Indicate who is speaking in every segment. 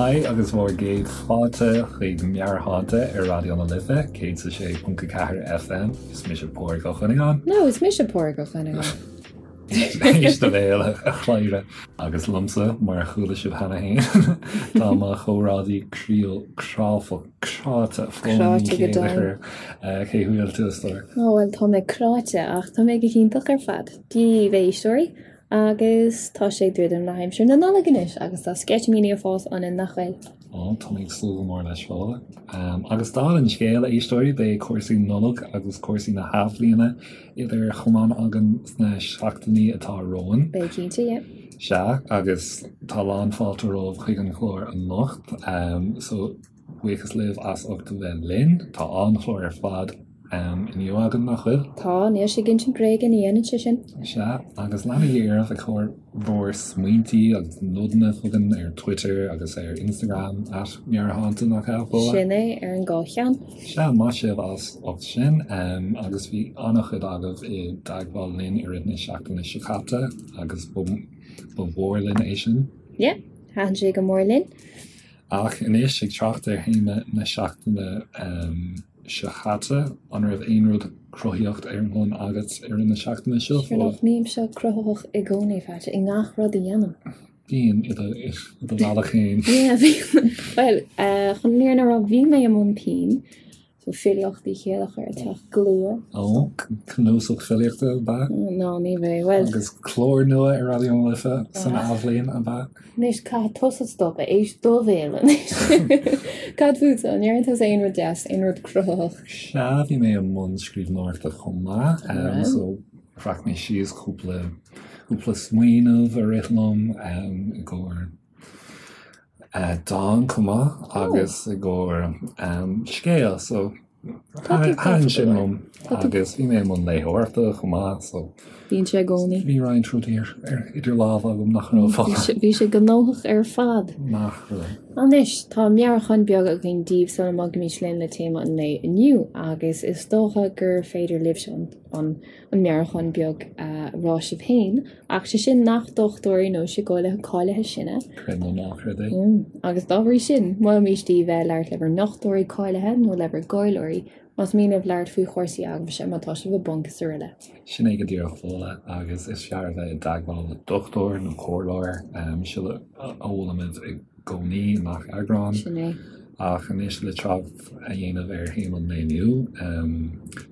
Speaker 1: Haigh agus bhur gcéad fáilte chuig Meabhairshláinte ar Raidió na Life 106.4 FM. Is mise Pádraig Ó Cuinneagáin.
Speaker 2: No, is mise Pádraig Ó Cuinneagáin.
Speaker 1: Éist do bhéal, a chladhaire. Agus liomsa, mar a chuala sibh cheana féin, tá mo chomrádaí croíúil cráifeach cráite Fódhla Ní
Speaker 2: Cráite go
Speaker 1: Chéilleachair. Cén chaoi a bhfuil tú, a stór?
Speaker 2: Ó, bhuel, tá mé cráite ach tá mé go hiontach ar fad. Dia daoibh, a éisteoirí. Agus tá sé ag druidim le haimsir na Nollag anois agus tá sceitimíní ag fás ionainn, nach bhfuil?
Speaker 1: Ó, tá mé ag súil go mór leis, Fódhla. Agus dála an scéil, a éisteoirí, beidh cúrsaí Nollag agus cúrsaí na hathbhliana idir chamáin againn sna seachtainí atá romhainn.
Speaker 2: Beidh cinnte, yeah.
Speaker 1: Sea, agus tá lán fáilte romhaibh chuig an chlár anocht. So. Buíochas libh as ucht a bheith linn. Tá an-chlár ar fad inniu againn, nach bhfuil?
Speaker 2: Tá, níl sé ag insint bréige, ní dhéanann sé sin.
Speaker 1: Sea, agus leanaigí oraibh ag cur bhur smaointí agus nodanna chugainn ar Twitter agus ar Instagram, at Meabhairshláinte, nach ea, Fódhla?
Speaker 2: Sin é, ar an dhá cheann.
Speaker 1: Sea, maith sibh as ucht sin. Agus bhí an-chuid agaibh i dteagmháil linn i rith na seachtaine seo caite agus ba mhór linn é sin.
Speaker 2: Yeah, thaitin sé go mór linn.
Speaker 1: Ach anois, ag trácht ar théama na seachtaine seo caite, an raibh aon rud cruthaíocht ar bun agat i rith na seachtaine seo?
Speaker 2: Sure nach mbímse cruthaitheach i gcónaí, Phaidí, i ngach rud a dhéanaim.
Speaker 1: Bíonn, i do bhealach féin.
Speaker 2: Yeah, bíonn. Bhuel, chun an fhírinne a rá, bhí mé i mbun pinn. So filíocht Uí Chéilleachair ag teacht go luath.
Speaker 1: Ó, cnuasach filíochta ab ea?
Speaker 2: Ná, ní bheidh. Bhuel.
Speaker 1: Agus clár nua ar Raidió na Life san athbhliain ab ea?
Speaker 2: Anois, caithfidh tusa stop, éist do bhéal anois. Cad fútsa? An ndearna tusa aon rud deas, aon rud cruthaitheach?
Speaker 1: Sea, bhí mé i mbun scríbhneoireachta chomh maith. So, bhreac mé síos cúpla, cúpla smaoineamh a rith liom i gcomhair dán chomh maith agus i gcomhair scéal so thaitin sin liom agus bhí mé i mbun léitheoireachta chomh maith so
Speaker 2: Bíonn sé i gcónaí.
Speaker 1: Bhí roinnt rudaí idir lámha agam nach raibh
Speaker 2: fágtha. Bhí sé gnóthach ar fad.
Speaker 1: Nach raibh.
Speaker 2: Anois, tá meabhrúchán beag againn daoibh sula mbogfaimid linn le téama an lae inniu agus is dócha gur féidir libhse an an meabhrúchán beag a rá sibh féin, ach sé sin nach dochtúirí nó síceolaithe cáilithe sinne.
Speaker 1: Creid nó ná creid é.
Speaker 2: Agus dá bhrí sin, molaimid daoibh bheith ag labhairt le bhur ndochtúirí cáilithe nó le bhur gcomhairleoirí más mian libh labhairt faoi chúrsaí eagmhaise, má tá sibh i bponc is araile.
Speaker 1: Sin é go díreach Fódhla, agus is fearr a bheith i dteagmháil le dochtúir nó comhairleoir, sin a mholaimid i gcónaí i ngach eagrán.
Speaker 2: Sin é.
Speaker 1: Ach anois le trácht a dhéanamh ar théama an lae inniu,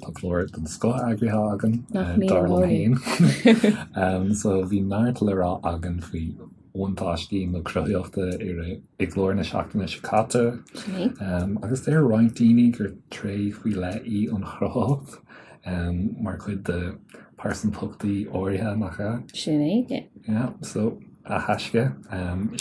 Speaker 1: tá clár den scoth eagraithe againn, dar liom féin. So bhí neart le rá againn faoi bhuntáistí na cruthaitheachta i gclár na seachtaine seo caite. Agus deir roinnt daoine gur tréith faoi leith í an chruthaitheacht mar chuid de pearsantachtaí áirithe, nach ea?
Speaker 2: Sin é, yeah.
Speaker 1: Yeah, so a thaisce,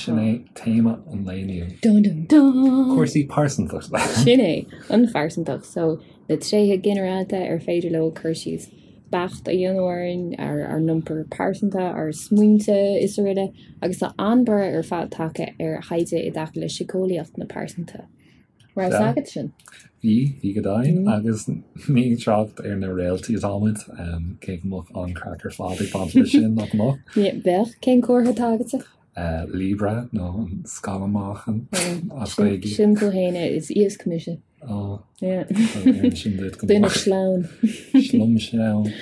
Speaker 1: sin é téama an lae inniu.
Speaker 2: Dun dun dun!
Speaker 1: Cúrsaí pearsantachta.
Speaker 2: Sin é, an phearsantacht. So, na tréithe ginearálta ar féidir leo cur síos beacht a dhéanamh orainn, ar ár n-iompar pearsanta, ár smaointe is araile. Agus tá an-borradh ar fad tagtha ar thaighde i dtaca le síceolaíocht na pearsantachta. Raibh a fhios agat sin?
Speaker 1: Bhí, bhí go deimhin, agus ní ag trácht ar na réaltaí atáimid, cé go mbeadh an-chraic ar fad ag baint leis sin, nach mbeadh?
Speaker 2: Bheadh. Cén comhartha atá agatsa?
Speaker 1: Libra, nó an scamall meáchain
Speaker 2: as Gaeilge. Sin tú fhéin, is iasc mise.
Speaker 1: Ó,
Speaker 2: sin duit go Duine sleamhain.
Speaker 1: Slom sleamhain.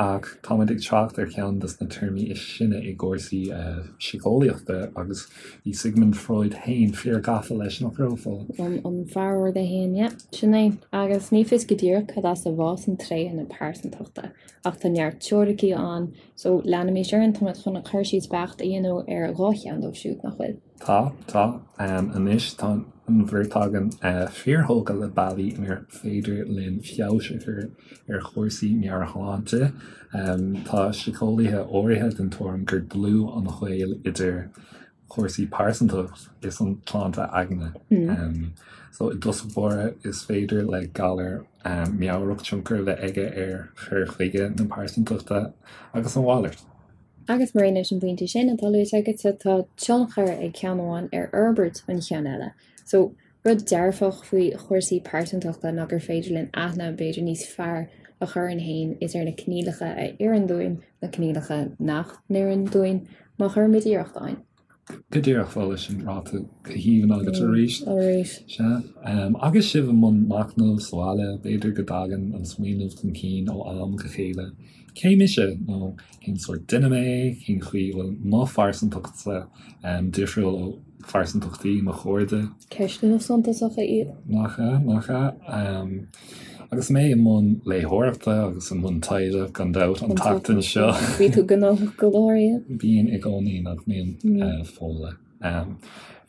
Speaker 1: Ach táimid ag trácht ar cheann de na téarmaí is sine i gcúrsaí síceolaíochta agus Bhí Sigmund Freud féin fíor gafa leis, nach raibh,
Speaker 2: Fódhla? An fear ard é féin, yeah, sin é. Agus ní fios go díreach cad as a bhfásann tréithe na pearsantachta, ach tá neart teoiricí ann, so leanaimis orainn, táimid chun cur síos beacht a dhéanamh ar dhá cheann dóibh siúd, nach bhfuil?
Speaker 1: Tá, tá. Anois tá an bheirt againn fíorthógtha le bealaí inar féidir linn feabhas a chur ar chúrsaí meabhairshláinte. Tá síceolaithe áirithe den tuairim gur dlúth an gaol idir chúrsaí pearsantachta is an tsláinte aigne. So i dtosach báire is féidir le galar meabhrach tionchar a bheith aige ar chur chuige na pearsantachta agus a mhalairt.
Speaker 2: Agus mar aon leis an bpointe sin atá luaite agatsa, tá tionchar ag ceann amháin ar fhorbairt an cheann eile. So, rud dearfach faoi chúrsaí pearsantachta ná gur féidir linn aithne b'fhéidir níos fearr a chur orainn féin is ar na coinníollacha a oireann dúinn, na coinníollacha nach n-oireann dúinn, má chuirimid iarracht ann.
Speaker 1: Go díreach, Fódhla, sin ráite go haoibhinn agat arís.
Speaker 2: Arís.
Speaker 1: Sea. Agus sibh i mbun machnaimh sa bhaile, b'fhéidir go dtagann an smaoineamh chun cinn ó am go chéile, cé mise? Nó cén sórt duine mé? Cén chaoi a bhfuil mo phearsantachtsa difriúil ó phearsantachtaí mo chairde?
Speaker 2: Ceisteanna suntasacha iad.
Speaker 1: Nach ea? Nach ea? Agus mé i mbun léitheoireachta agus i mbun taighde, gan dabht, an tseachtain seo.
Speaker 2: Bhí tú gnóthach go leor, yeah.
Speaker 1: Bíonn i gcónaí, nach mbíonn, Fódhla.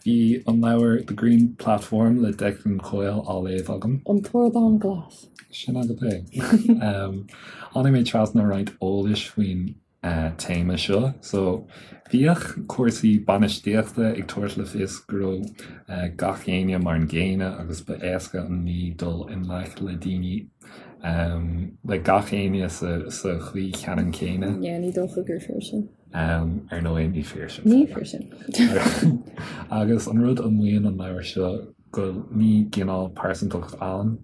Speaker 1: Bhí an leabhar The Green Platform le Declan Coyle á léamh agam.
Speaker 2: An tArdán Glas.
Speaker 1: Sin agat é. Tháinig mé trasna roinnt eolais faoin téama seo. So, bhíodh cúrsaí bainistíochta ag tabhairt le fios go raibh gach éinne mar an gcéanna agus ba éasca an ní dul i ngleic le daoine, le gach éinne sa chaoi cheannann céanna.
Speaker 2: Yeah, ní dócha gur fíor sin.
Speaker 1: Ar ndóigh, ní fíor sin.
Speaker 2: Ní fíor sin.
Speaker 1: Agus an rud a mhaíonn an leabhar seo go ní cineál pearsantacht ann.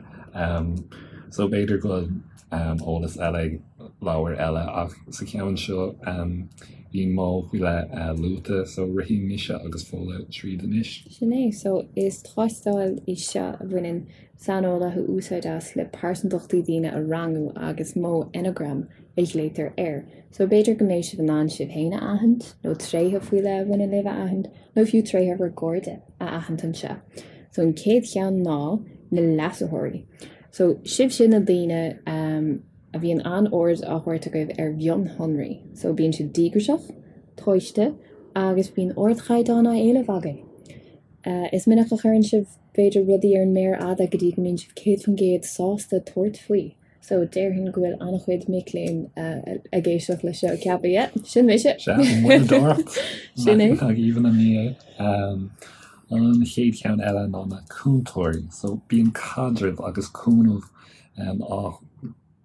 Speaker 1: So b'fhéidir go bhfuil eolas eile ag leabhair eile ach sa cheann seo bhí modh faoi leith luaite so rithfidh mise agus Fódhla tríd anois.
Speaker 2: Sin é. So is tástáil í seo a bhaineann saineolaithe úsáid as le pearsantachtaí daoine a rangú agus modh Enneagram a ghlaotar air. So b'fhéidir go mbeidh sibh in ann sibh féin a aithint nó tréithe faoi leith a bhaineann libh a aithint nó fiú tréithe bhur gcairde a aithint anseo. So an chéad cheann ná na leasaitheoirí. So sibhse na daoine a bhíonn an-aird á thabhairt agaibh ar mhionshonraí. So bíonn sibh díograiseach, tomhaiste agus bíonn ardchaighdeán á éileamh agaibh. Is minic a chuireann sibh b'fhéidir rudaí ar an méar fhada go dtí go mbíonn sibh 100% sásta tabhairt faoi. So déarfainn go bhfuil an-chuid mic léinn ag éisteacht leis seo ag ceapadh, yeah, sin mise!
Speaker 1: Sea, an mhoilleadóireacht.
Speaker 2: Sin é.
Speaker 1: Nach aoibhinn an ní é. An chéad cheann eile ná na cúntóirí. So bíonn caidreamh agus cúnamh á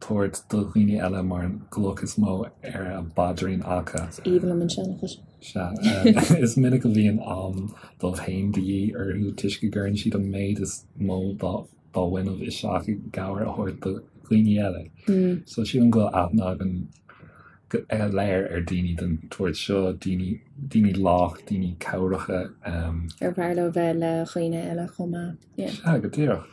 Speaker 1: tabhairt do dhaoine eile mar an gcloch is mó ar a bpaidrín acu.
Speaker 2: Is aoibhinn liom an seanchas.
Speaker 1: Sea. Is minic a bhíonn am dóibh féin de dhíth orthu toisc go gcuireann siad an méid is mó dá bhfuinneamh isteach i gcabhair a thabhairt do dhaoine eile. So sílim go bhfuil aithne againn go léir ar daoine den tsórt seo, daoine, daoine lách, daoine cabhracha.
Speaker 2: Ar fearr leo bheith le dhaoine eile chomh maith.
Speaker 1: Yeah. Sea, go díreach.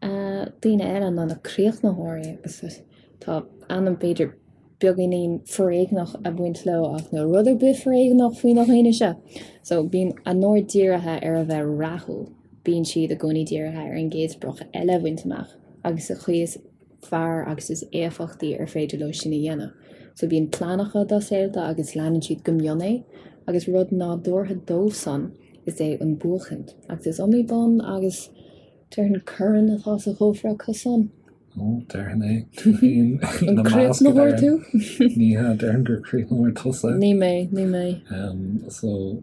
Speaker 2: Daoine eile ná na críochnaitheoirí agus tá ainm b'fhéidir beagáinín foréigneach ag baint leo ach níl rud ar bith foréigneach faoi na dhaoine seo. So bíonn a n-aird dírithe ar a bheith rathúil, bíonn siad i gcónaí dírithe ar an gcéad sprioc eile a bhaint amach agus sa chaoi is fearr agus is éifeachtaí ar féidir leo sin a dhéanamh. So bíonn plean acu dá saolta agus leanann siad go mion é agus rud nádúrtha dóibhsan is ea an buachaint agus is iomaí bonn agus déarfainn corn atá sa chófra acusan.
Speaker 1: Ó, déarfainn é. Tú féin
Speaker 2: ina measc, a
Speaker 1: An críochnaitheoir tú? Ní hea, déarfainn gur críochnaitheoir tusa.
Speaker 2: Ní mé, ní mé.
Speaker 1: So,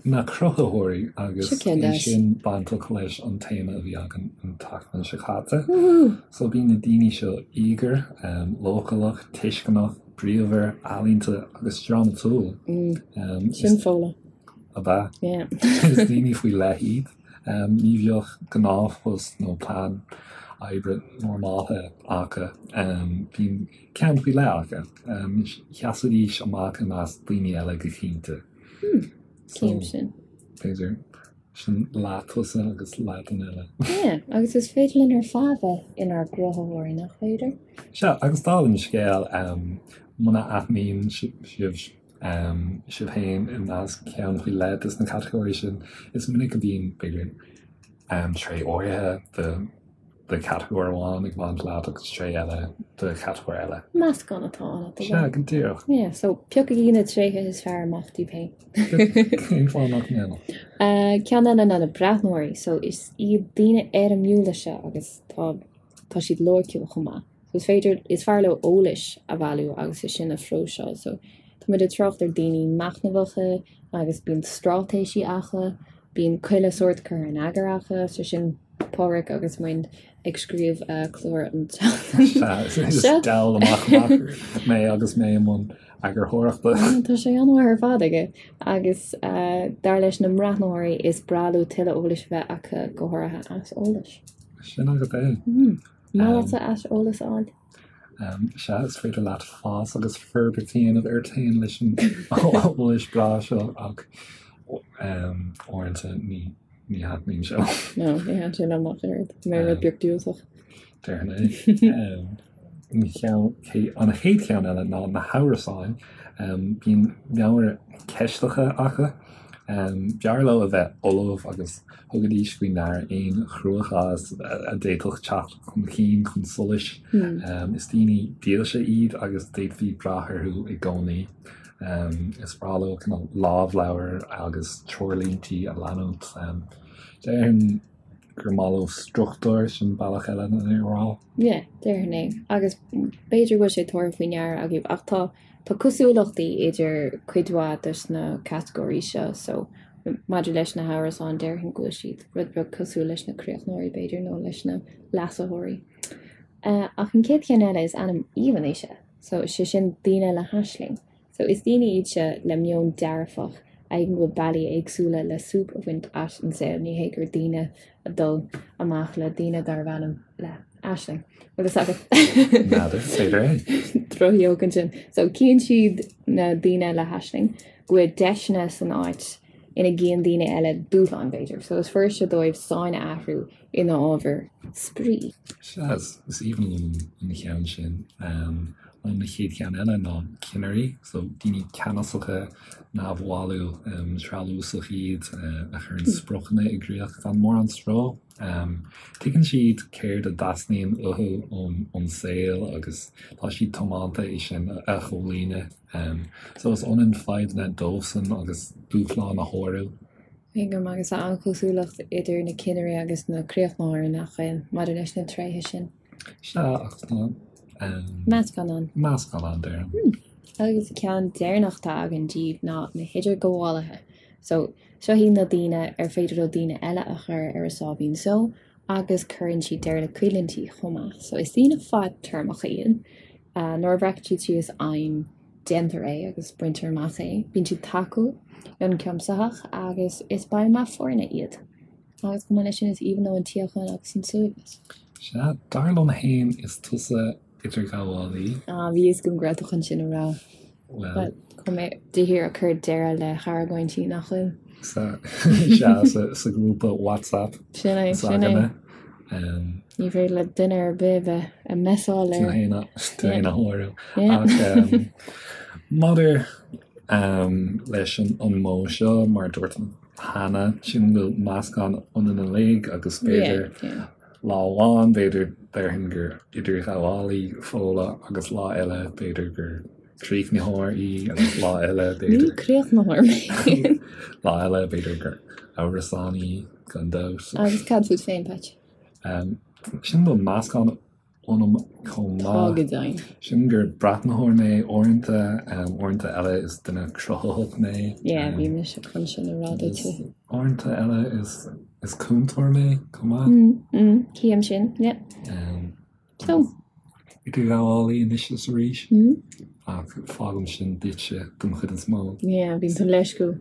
Speaker 1: na cruthaitheoirí agus é sin bainteach leis an téama a bhí againn an tseachtain seo caite. So bíonn na daoine seo íogair, leochaileach, tuisceanach, bríomhar, ealaíonta agus drámatúil.
Speaker 2: Sin Fódhla.
Speaker 1: Ab ea? Is daoine faoi leith iad. Ní bheadh gnáthphost nó plean oibre normálta acu. Bíonn ceann faoi leith acu. Sheasfaidís amach i measc daoine eile go cinnte.
Speaker 2: Cím sin.
Speaker 1: B'fhéidir. Sin leath tusa agus leath duine eile.
Speaker 2: Yeah, agus is féidir linn ar fad bheith inár gcruthaitheoirí, nach féidir?
Speaker 1: Sea, agus dála an scéil, muna aithníonn sibh sibh féin i measc ceann faoi leith de na catagóirí sin. Is minic a bhíonn, b'fhéidir, tréith áirithe de de chatagóir amháin ag baint leat agus tréith eile de chatagóir eile.
Speaker 2: Meascán atá ann
Speaker 1: at the Sea, go díreach.
Speaker 2: Yeah, so piocaigí na tréithe is fearr amach daoibh féin.
Speaker 1: Cén fáth nach ndéanfadh?
Speaker 2: Ceann eile ná na breathnóirí. So is iad daoine éirimiúla seo agus tá tá siad loighciúil chomh maith. So is féidir, is fearr leo eolais a bhailiú agus é sin a phróiseáil. So tá muid ag trácht ar daoine machnamhacha agus bíonn straitéisí acu, bíonn chuile sórt curtha in eagar acu, so sin Pádraic agus muid ag scríobh clár an
Speaker 1: tseachtain seo. Is diabhal amach amach mé agus mé i mbun eagarthóireachta.
Speaker 2: Tá sé an-mhaith ar fad aige agus dar leis na mbreathnóirí is breá leo tuilleadh eolais a bheith acu, go háirithe aiseolais.
Speaker 1: Sin agat é.
Speaker 2: Maith leatsa aiseolas a fháil?
Speaker 1: Sea, is féidir leat fás agus forbairt a dhéanamh ort féin leis an eolas breá seo ach Uaireanta ní ní thaitníonn sé.
Speaker 2: No, ní thaitníonn sé liom ach oiread. Tá mé rud beag diúltach.
Speaker 1: Déarfainn é. An cheann, an chéad cheann eile ná na hamhrasáin. Bíonn meabhair cheisteach acu. B'fhearr leo a bheith ullamh agus thugaidís faoi ndeara aon chruachás a d'fhéadfadh teacht chun cinn chun solais. Is daoine dílse iad agus d'fhéadfaí brath orthu i gcónaí. Is breá leo cineál lámhleabhair agus treoirlíntí a leanúint. Déarfainn gur maith leo struchtúr, sin bealach eile lena
Speaker 2: rá. Yeah, déarfainn é. Agus b'fhéidir go bhfuil sé tabhartha faoi ndeara agaibh ach tá tá cosúlachtaí idir cuid mhaith dos na catagóirí seo so maidir leis na hamhrasáin déarfainn go bhfuil siad rud beag cosúil leis na críochnóirí b'fhéidir nó leis na leasaitheoirí. Ach an chéad cheann eile is ainm aoibhinn é seo. So, sé sin daoine le haisling. So, is daoine iad seo le meon dearfach a thuigeann go bhfuil bealaí éagsúla le súp a bhaint as an saol. Ní hé gur daoine a dul amach le daoine darbh ainm le Aisling. Bhfuil fhios agat?
Speaker 1: N'fheadar, b'fhéidir
Speaker 2: é. Droch-jóc ansin. So, cíonn siad na daoine le haisling go bhfuil deiseanna san áit ina gcíonn daoine eile dúshlán, b'fhéidir. So, is fuiriste dóibh sáinn a athrú ina ábhar spraoi.
Speaker 1: Sea, is aoibhinn liom an cheann sin. An chéad cheann eile ná cinnirí, so daoine ceannasacha, neamhbhailí, treallúsach iad, a chuireann spriocanna i gcrích gan mórán stró. Tuigeann siad céard a dteastaíonn uathu ón saol agus tá siad tiomanta é sin a chomhlíonadh. So is ionann fadhbanna dóibhsean agus dúshláin a shárú.
Speaker 2: Tuigim, agus tá an-chosúlacht idir na cinnirí agus na críochnóirí, nach bhfuil, maidir leis na tréithe sin.
Speaker 1: Sea, ach tá.
Speaker 2: Meascán ann.
Speaker 1: Meascán ann, déarfainn.
Speaker 2: Agus ceann deireanach atá againn díobh ná na hidirghabhálaithe. So, seo iad na daoine ar féidir leo daoine eile a chur ar a sáimhín só agus cuireann siad deireadh le coimhlintí chomh maith. So, is daoine fadtéarmacha iad. Nuair a bhreacann siad síos aidhm, déantar é agus baintear amach é. Bíonn siad tacúil, ionchuimsitheach agus is baill maith foirne iad. Agus chomh maith leis sin is aoibhinn leo an tsíocháin agus an suaimhneas.
Speaker 1: Sea, dar liom fhéin is tusa idirghabhálaí.
Speaker 2: Ah, bhí fhios agam go raibh tú chun sin a rá.
Speaker 1: Bhuel.
Speaker 2: Tá mé de shíor ag cur deireadh le hargóintí, nach bhfuil?
Speaker 1: Sea, sea, sa ghrúpa WhatsApp.
Speaker 2: Sin é, sin é. Ní féidir le duine ar bith bheith ag messáil
Speaker 1: ar. Tú fhéin a shárú. Ach maidir leis an modh seo, mar a dúirt cheana, sílim go bhfuil meascán ionainn uilig agus b'fhéidir lá amháin, b'fhéidir déarfainn gur idirghabhálaí Fódhla agus lá eile b'fhéidir gur críochnaitheoir í agus lá eile
Speaker 2: b'fhéidir. Ní críochnaitheoir mé.
Speaker 1: Lá eile b'fhéidir gur amhrasánaí gan dabht.
Speaker 2: Agus cad fút féin, Patch?
Speaker 1: Sílim go bhfuil meascán ionam chomh
Speaker 2: maith. Tá go deimhin.
Speaker 1: Sílim gur breathnaitheoir mé uaireanta, uaireanta eile is duine cruthaitheach mé.
Speaker 2: Yeah, bhí mise chun sin a rá duit.
Speaker 1: Uaireanta eile is cúntóir mé chomh maith.
Speaker 2: Cím sin, yeah. So.
Speaker 1: Idirghabhálaí anois is arís. Ach fágaim sin duitse don chuid is mó.
Speaker 2: Yeah, bíonn tú leisciúil.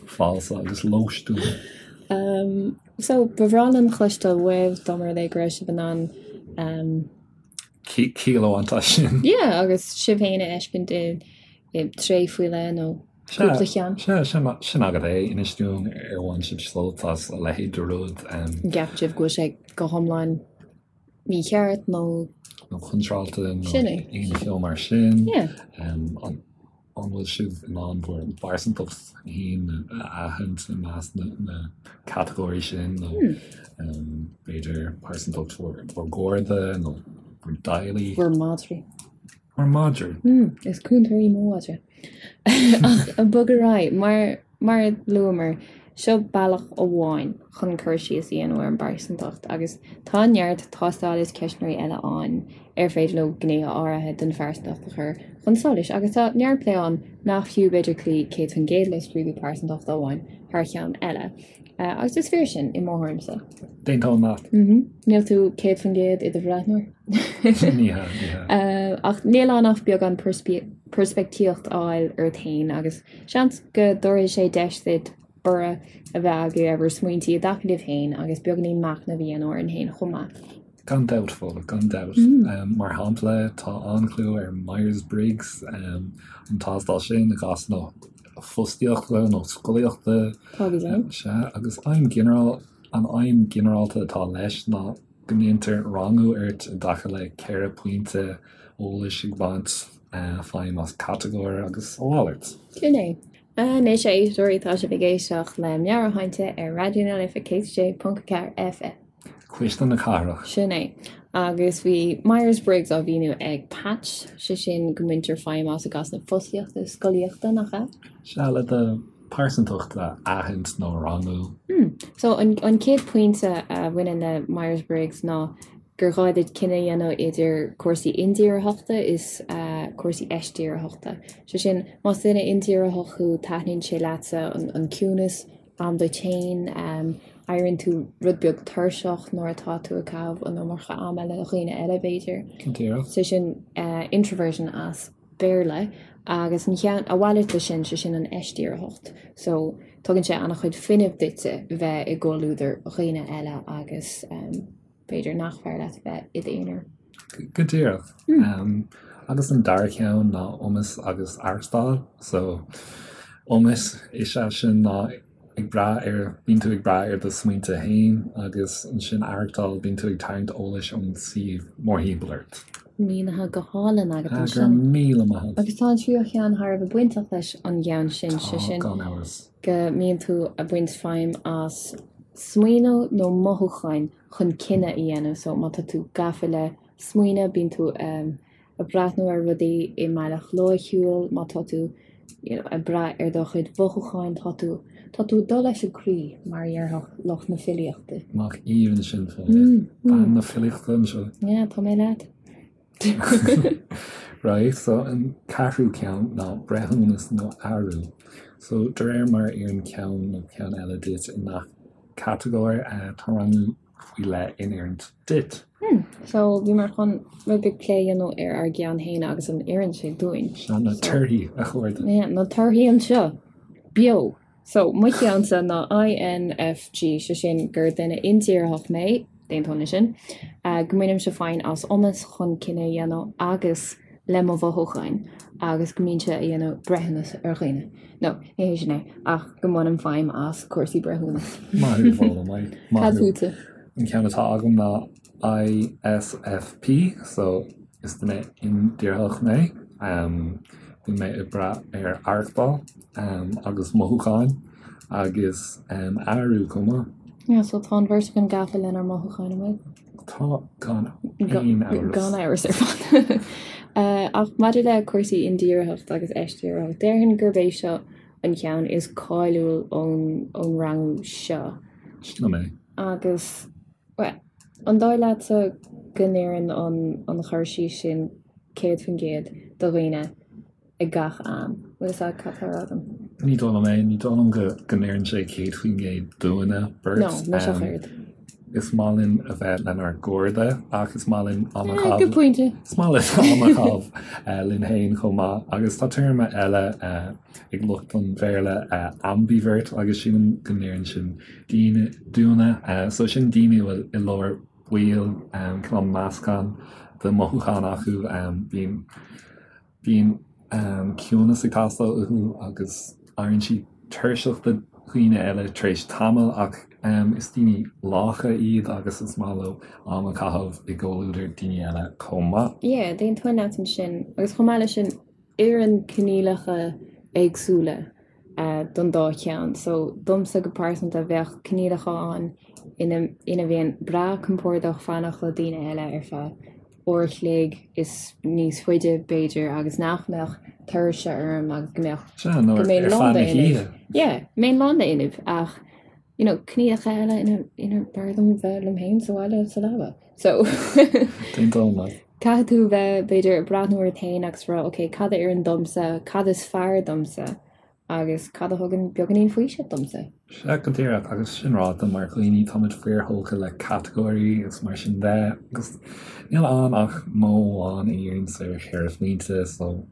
Speaker 1: Falsa agus lóistiúil.
Speaker 2: So, ba bhreá linn cloisteáil uaibh dá mba rud é go raibh sibh in ann.
Speaker 1: Ciall a bhaint as sin.
Speaker 2: Yeah, agus sibh féin a fheiscint i dtréith faoi leith nó cúpla cheann.
Speaker 1: Sea, sin agat é. Inis dúinn ar bhain sibh sult as a leithéid de rud.
Speaker 2: An gceapann sibh go bhfuil sé go hiomlán mícheart nó.
Speaker 1: Nó contráilte nó aon cheo mar sin. An bhfuil sibh in ann bhur bpearsantacht féin a aithint i measc na catagóirí sin nó b'fhéidir pearsantacht bhur gcairde nó bhur dteaghlaigh?
Speaker 2: Bhur madraí.
Speaker 1: Bhur madraí.
Speaker 2: Is cúntóir í mo mhadra. Ach bog ar aghaidh, mar Mar a luamar, seo bealach amháin chun cur síos a dhéanamh ar an bpearsantacht agus tá neart tástáil is ceistneoirí eile ann ar féidir leo gnéithe áirithe den phearsantacht a chur chun solais agus tá neart plé ann nach fiú b'fhéidir cloí 100% le scrúdú pearsantachta amháin thar cheann eile. Agus is fíor sin, i mo thuairimse.
Speaker 1: D'aontóinn leat.
Speaker 2: Níl tú 100% i do bhreathnóir.
Speaker 1: Ní hea, ní
Speaker 2: hea. Ach níl ann ach beagán peirspictíocht a fháil ort féin agus Seans go dtabharfaidh sé deis duit borradh a bheith agaibh ar bhur smaointí i dtaca libh féin agus beagáinín machnaimh a dhéanamh orainn féin chomh maith.
Speaker 1: Gan dabht, Fódhla, gan dabht. Mar shampla, tá an-chlú ar Myers-Briggs, an tástáil sin i gcás na. fostaíochta nó scolaíochta.
Speaker 2: Tá go deimhin.
Speaker 1: Sea, agus aidhm ghinearál, an aidhm ghinearálta atá leis ná go ndéantar rangú ort i dtaca le 4 pointe eolais ag baint feidhm as catagóir agus a mhalairt.
Speaker 2: Sin é. Anois, a éisteoirí, tá sibh ag éisteacht le Meabhairshláinte ar Raidió na Life 106.4 FM.
Speaker 1: Cuisle na Cathrach.
Speaker 2: Sin é. Agus bhí Myers-Briggs á mhíniú ag Patch, sé sin go mbaintear feidhm as i gcás na fostaíochta is scolaíochta, nach ea?
Speaker 1: Sea, le do pearsantacht a aithint nó a rangú.
Speaker 2: So, an chéad pointe a bhaineann le Myers-Briggs ná gur ghá duit cinneadh a dhéanamh idir cúrsaí indíritheachta is cúrsaí eisdíritheachta. Sé sin, más duine indíritheach thú, taitníonn sé leatsa an ciúnas, am duit féin, éiríonn tú rud beag tuirseach nuair atá tú ag caitheamh an iomarca ama le dhaoine eile, b'fhéidir.
Speaker 1: Go díreach.
Speaker 2: Sé sin introversion as Béarla agus an cheann, a mhalairt de sin, sé sin an eisdíritheacht. So, tugann sé an-chuid fuinnimh duitse bheith i gcomhluadar dhaoine eile agus b'fhéidir nach fearr leat bheith i d'aonar.
Speaker 1: Go díreach. Agus an dara ceann ná iomas agus aireachtáil. So, iomas is ea sin ná ag brath ar, bíonn tú ag brath ar do smaointe féin agus ansin aireachtáil, bíonn tú ag tarraingt eolais ón suíomh mórthimpeall ort.
Speaker 2: Mínithe go hálainn agat
Speaker 1: ansin. Go raibh míle maith agat.
Speaker 2: Agus tá an tríú cheann thar a bheith bainteach leis an gceann sin, sé sin.
Speaker 1: Tá, gan amhras.
Speaker 2: Go mbíonn tú ag baint feidhm as smaoineamh nó mothúcháin chun cinneadh a dhéanamh. So má tá tú gafa le smaoineamh, bíonn tú ag breathnú ar rudaí i mbealach loighciúil, má tá tú you know ag brath ar do chuid mhothúcháin, tá tú, tá tú ag dul leis an gcroí, mar a dhéarfadh lucht na filíochta.
Speaker 1: Nach aoibhinn sin, Fódhla. Bean na filíochta anseo.
Speaker 2: Yeah, tá mé leat.
Speaker 1: Right, so an ceathrú ceann ná breithiúnas nó airiú. So de réir mar a oireann ceann nó ceann eile duit i ngach catagóir, tá rangú faoi leith in oiriúint duit.
Speaker 2: Hmm, so bhíomar chun rud beag plé a dhéanamh ar ár gceann féin agus an oireann sé dúinn.
Speaker 1: Sea, na torthaí, a chairde.
Speaker 2: Yeah, na torthaí anseo, beo! So, mo cheannsa ná INFG, sé sin gur duine indíritheach mé, d'aontóinn leis sin, go mbainimse feidhm as iomas chun cinneadh a dhéanamh agus le mo mhothúcháin agus go mbímse ag déanamh breithiúnas ar dhaoine. No, ní hé sin é, ach go mbainim feidhm as cúrsaí breithiúnas.
Speaker 1: Maith thú, Fódhla, maith
Speaker 2: thú. Cad fútsa?
Speaker 1: An ceann atá agam ná ISFP, so is duine indíritheach mé. Bíonn mé ag brath ar aireachtáil agus mothúcháin agus airiú chomh maith.
Speaker 2: Yeah, so tá an bheirt againn gafa lenár mothúcháin, an bhfuil?
Speaker 1: Tá, gan aon amhras.
Speaker 2: Gan amhras ar fad. Ach maidir le cúrsaí indíritheacht agus eisdíritheacht, déarfainn gurb é seo an ceann is cáiliúil ón rangú seo.
Speaker 1: Sin é.
Speaker 2: Agus, bhuel, an dóigh leatsa go n-oireann an cur síos sin 100% do dhaoine ag gach am? Bhfuil fhios agat cad tá á rá agam?
Speaker 1: Ní dóigh liom é. Ní dóigh liom go n-oireann sé 100% dúinne
Speaker 2: beirt. No, mise ach oiread.
Speaker 1: Is maith linn a bheith lenár gcairde ach is maith linn am a chaitheamh.
Speaker 2: Good pointe.
Speaker 1: Is maith linn am a chaitheamh linn féin chomh maith. Agus tá téarma eile ag lucht an Bhéarla, ambivert, agus sílim go n-oireann sin daoine, dúinne. So sin daoine a bhfuil i lár baill, cineál meascán de mhothúcháin acu. Bíonn, bíonn ciúnas ag teastáil uathu agus éiríonn siad tuirseach de dhaoine eile tar éis tamaill ach is daoine lácha iad agus is maith leo am a chaitheamh i gcomhluadar daoine eile chomh maith.
Speaker 2: Yeah, d'aontóinn leat ansin. Agus chomh maith leis sin, oireann coinníollacha éagsúla don dá cheann. So, domsa go pearsanta, bheadh coinníollacha ann ina ina mbeinn breá compordach fanacht le daoine eile ar feadh uair a chloig is níos faide, b'fhéidir, agus nach mbeadh tuirse orm agus go mbeadh
Speaker 1: Sea, nó
Speaker 2: go
Speaker 1: ar
Speaker 2: mbeinn
Speaker 1: feadh
Speaker 2: lán
Speaker 1: na
Speaker 2: d'fhuinneamh.
Speaker 1: hoíche.
Speaker 2: Yeah, mbeinn lán d'fhuinneamh ach you know, coinníollacha eile ina ina b'fhearr dom bheith liom féin sa bhaile sa leaba. So
Speaker 1: D'aontóinn leat.
Speaker 2: Caithfidh tú bheith, b'fhéidir, ag breathnú ort féin agus rá, ok, cad a oireann domsa, cad is fearr domsa agus cad a thugann beagáinín faoisimh domsa.
Speaker 1: Sea, go díreach, agus sin ráite, mar dhaoine, táimid fíorthógtha le catagóirí is mar sin de, agus níl ann ach modh amháin a dhíríonns ar cheithre phointe, so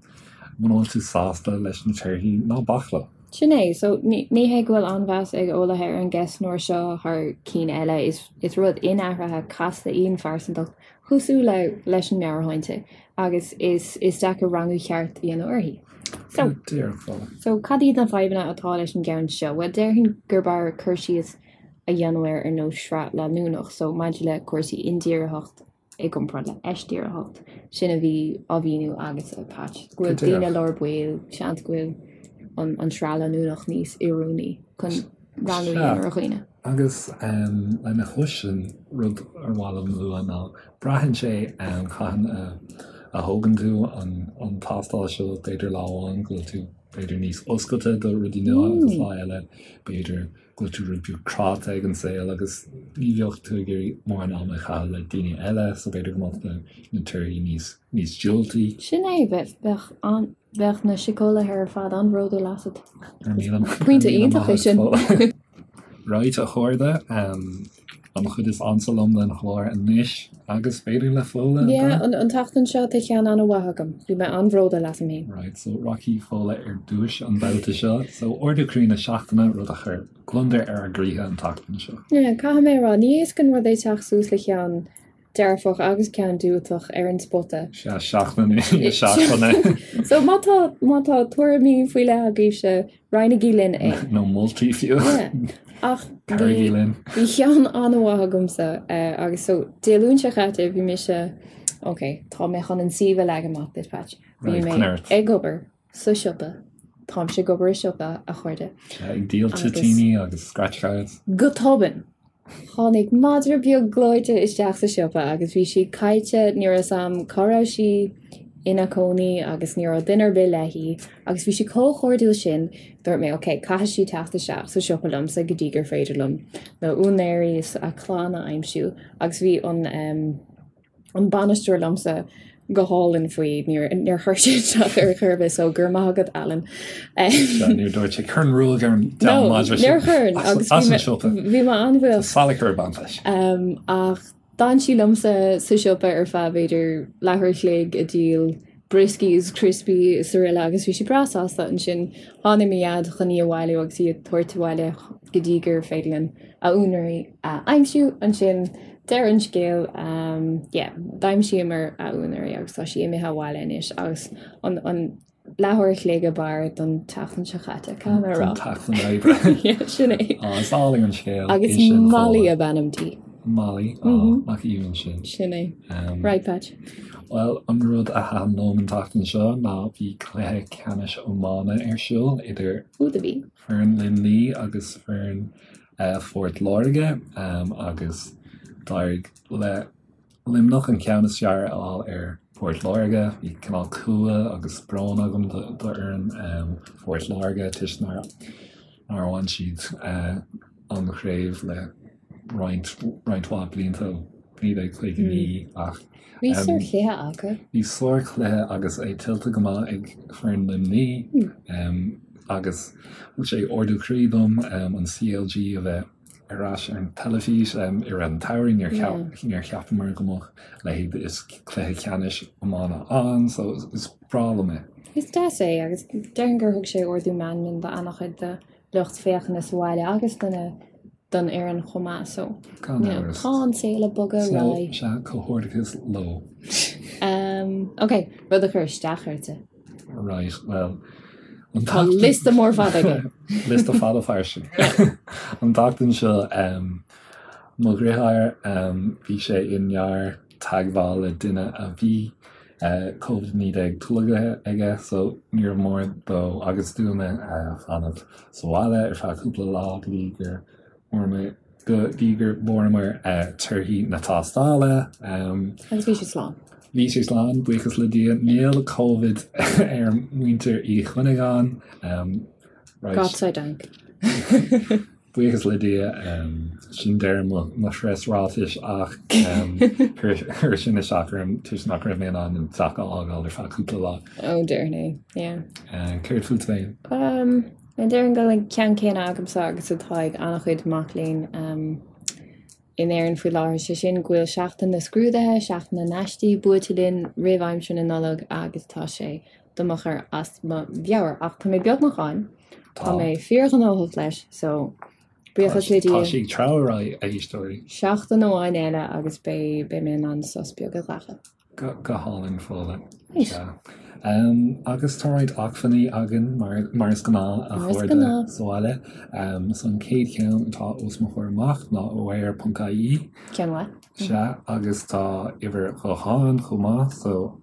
Speaker 1: muna bhfuil tú sásta leis na torthaí, ná bac leo.
Speaker 2: Sin é, so ní hé go bhfuil an-mheas ag eolaithe ar an gceistneoir seo thar cinn eile, is rud inathraithe casta í an phearsantacht, Cosúil le leis an meabhairshláinte agus is is deacair rangú ceart a dhéanamh uirthi. So, so cad iad na fadhbanna atá leis an gceann seo? Bhuel, déarfainn gurb fhearr cur síos a dhéanamh air ar nós sraith leanúnach, so maidir le cúrsaí indíritheacht i gcomparáid le heisdíritheacht, sin a bhí á mhíniú agatsa, Patch, go bhfuil daoine lár baill, seans go bhfuil an, an sraith leanúnach níos oiriúnaí chun rangú a dhéanamh ar dhaoine.
Speaker 1: Agus lena chois sin, rud ar mhaith liom a lua ná braitheann sé cathain a thógann tú an tástáil seo, b'fhéidir lá amháin go bhfuil tú b'fhéidir níos oscailte do rudaí nua agus lá eile b'fhéidir go bhfuil tú rud beag cráite ag an saol agus ní bheadh tú ag iarraidh mórán ama a chaitheamh le daoine eile so b'fhéidir go mbeadh na torthaí níos níos diúltaí.
Speaker 2: Sin é, bheadh an Bheadh na síceolaithe ar fad an-bhródúil asat. Pointe iontach é sin.
Speaker 1: Right, a chairde, an chuid is ansa liom den chlár anois agus b'fhéidir le Fódhla.
Speaker 2: Yeah, an tseachtain seo tá ceann an-mhaith agam. Bhí mé an-bhródúil asam féin.
Speaker 1: Right, so rachaidh Fódhla ar dtús an babhta seo. So ardú croí na seachtaine, rud a chuir gliondar ar ár gcroíthe an tseachtain seo.
Speaker 2: Yeah, caithfidh mé a rá, ní éasca an rud é teacht suas le ceann dearfach agus ceann diúltach ar an spota.
Speaker 1: Sea, seachtain i ndiaidh seachtaine.
Speaker 2: So má tá, má tá tuairimí faoi leith agaibhse, roinnigí linn é.
Speaker 1: Nó moltaí fiú.
Speaker 2: Yeah. Ach
Speaker 1: Cabhraígí linn.
Speaker 2: bhí ceann an-mhaith agamsa agus so Dé Luain seo chaite bhí mise, ok, tá mé chun an suíomh a leagan amach duit, Patch. Bhí
Speaker 1: Right,
Speaker 2: mé
Speaker 1: coinnigh ort.
Speaker 2: ag obair sa siopa. Táimse ag obair i siopa, a chairde.
Speaker 1: Sea, ag díol toitíní agus scratch cards.
Speaker 2: Go tobann, tháinig madra beag gleoite isteach sa siopa agus bhí sí caillte, ní raibh 'fhios a'm cá raibh sí ina cónaí agus ní raibh duine ar bith léi agus bhí sí chomh cairdiúil sin, dúirt mé ok, caithfidh sí teacht isteach sa siopa liomsa go dtí gur féidir liom na úinéirí is a clann a aimsiú agus bhí an em. an bainisteoir liomsa go hálainn faoi, níor níor chuir sé isteach ar chor ar bith so go raibh maith agat Alan.
Speaker 1: Sea, níor dúirt sé cuir an ruaig ar an
Speaker 2: No, madra sin níor chuir
Speaker 1: agus as an siopa.
Speaker 2: bhí mé an-bhuíoch.
Speaker 1: Tá salach ar baint leis.
Speaker 2: Ach d'fhan sí liomsa sa siopa ar feadh b'fhéidir leathuair a chloig ag díol brioscaí is criospaí is araile agus bhí sí breá sásta ansin tháinig mo dhaid chun í a bhailiú agus í a thabhairt abhaile go dtí gur féidir linn a úinéirí a aimsiú ansin deireadh an scéil yeah d'aimsíomar a úinéirí agus tá sí imithe abhaile anois agus an an leathuair a chloig ab fhearr don tseachtain seo chaite caithfidh mé a rá.
Speaker 1: Don tseachtain oibre.
Speaker 2: Yeah, sin é.
Speaker 1: Á, is álainn an scéal
Speaker 2: Agus é sin, Molly Fódhla. ab ainm di.
Speaker 1: Molly, á, nach aoibhinn sin.
Speaker 2: Sin é. Right, Patch.
Speaker 1: Bhuel, an rud a thaitin liom an tseachtain seo ná bhí cluiche ceannais iomána ar siúl idir
Speaker 2: Ó, do bhí.
Speaker 1: foireann Luimnigh agus foireann Phort Láirge agus d'éirigh le Luimneach an ceann is fearr a fháil ar Phort Láirge. Bhí cineál cumha agus brón agam d'fhoireann Phort Láirge toisc nár bhain siad an chraobh le roinnt roinnt mhaith blianta ó 1959 ach
Speaker 2: Bhí sárchluiche acu.
Speaker 1: Bhí sárchluiche agus é tuillte go maith ag foireann Luimnigh agus thug sé ardú croí dom an CLG a bheith ar ais ar an teilifís i rith an tsamhraidh. Níor cheapamar go mbeadh a leithéid is cluiche ceannais iomána ann so is breá liom é.
Speaker 2: Is deas é agus déarfainn gur thug sé ardú meanman do an-chuid de lucht féachana sa bhaile agus do na don fhoireann chomh maith so
Speaker 1: Gan
Speaker 2: you know,
Speaker 1: amhras.
Speaker 2: tá an saol ag bogadh ar
Speaker 1: So,
Speaker 2: aghaidh.
Speaker 1: sea, comhghairdeachas leo.
Speaker 2: Um, ok, rud a chuir isteach ortsa.
Speaker 1: Right, well, an
Speaker 2: Tá
Speaker 1: tseachtain-
Speaker 2: liosta mór fada aige.
Speaker 1: Liosta fada fairsing. An tseachtain seo, um, mo dheartháir, um, bhí sé i ndearbh-teagmháil le duine a bhí Covid-19 tolgtha aige so níor mhór dó agus dúinne fanacht sa bhaile ar feadh cúpla lá go dtí gur bhfuaireamar go dtí gur bhfuaireamar torthaí na tástála.
Speaker 2: Agus bhí sé slán.
Speaker 1: Bhí sé slán, buíochas le Dia. Níl Covid ar mhuintir Uí Chuinneagáin.
Speaker 2: Right. Gott sei Dank.
Speaker 1: Buíochas le Dia, sin deireadh mo phreasráitis ach chuir sin isteach orm toisc nach raibh mé in ann an teach a fhágáil ar feadh cúpla lá.
Speaker 2: Ó, déarfainn é, yeah.
Speaker 1: Céard fút féin?
Speaker 2: Déarfainn go bhfuil an ceann céanna agamsa agus atá ag an-chuid mac léinn in Éirinn faoi láthair, sé sin go bhfuil seachtain na scrúduithe, seachtain na n-aistí buailte linn roimh aimsir na Nollag agus tá sé do mo chur as mo mheabhair. Ach tá mé beagnach ann. Tá mé fíorghnóthach leis, so buíochas le Dia.
Speaker 1: Tá sí ag treabhadh ar aghaidh, a éisteoirí.
Speaker 2: Seachtain amháin eile agus beidh mé in ann sos beag a ghlacadh.
Speaker 1: Go hálainn, Fódhla. Sea. Agus tá roinnt acmhainní againn, mar is gnáth, a chairde sa bhaile. So an chéad cheann atá os mo chomhair amach ná aware.ie.
Speaker 2: Ceann mhaith.
Speaker 1: Sea, agus tá uimhir ghutháin chomh maith, so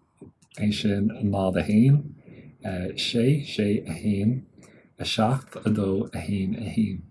Speaker 1: é sin 0 1, 6 6 1, 7 2 1 1.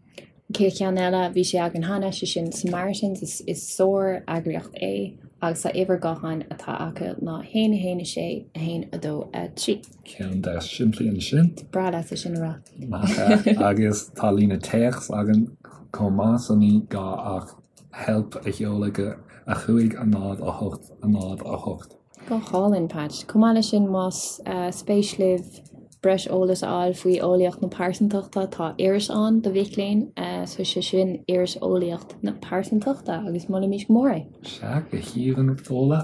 Speaker 2: An chéad cheann eile, bhí sé againn cheana, sé sin Samaritans, is sár-eagraíocht é agus tá uimhir gutháin atá acu ná 1 1 6 1 2 3.
Speaker 1: Ceann deas simplí ansin.
Speaker 2: Breá leatsa sin a rá.
Speaker 1: Nach ea? Agus tá líne téacs againn chomh maith so ní gá ach help a sheoladh go 5 0 8 0 8.
Speaker 2: Go hálainn, Patch. Chomh maith leis sin, más spéis libh breis eolais a fháil faoi eolaíocht na pearsantachta, tá iris ann do mhic léinn, so sé sin Iris Eolaíocht na Pearsantachta agus molaimid go mór é.
Speaker 1: Sea, go haoibhinn, Fódhla.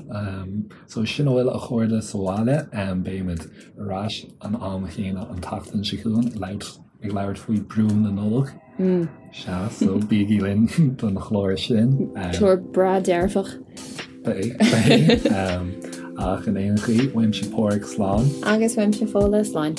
Speaker 1: So sin a bhfuil a chairde sa bhaile. Beimid ar ais an am chéanna an tseachtain seo chugainn ag labhairt ag labhairt faoi brú na Nollag. Sea, so bígí linn don chlár sin.
Speaker 2: Clár breá dearfach.
Speaker 1: Beidh, beidh. Ach in aon chaoi, uaimse Páraic slán.
Speaker 2: Agus uaimse Fódhla slán.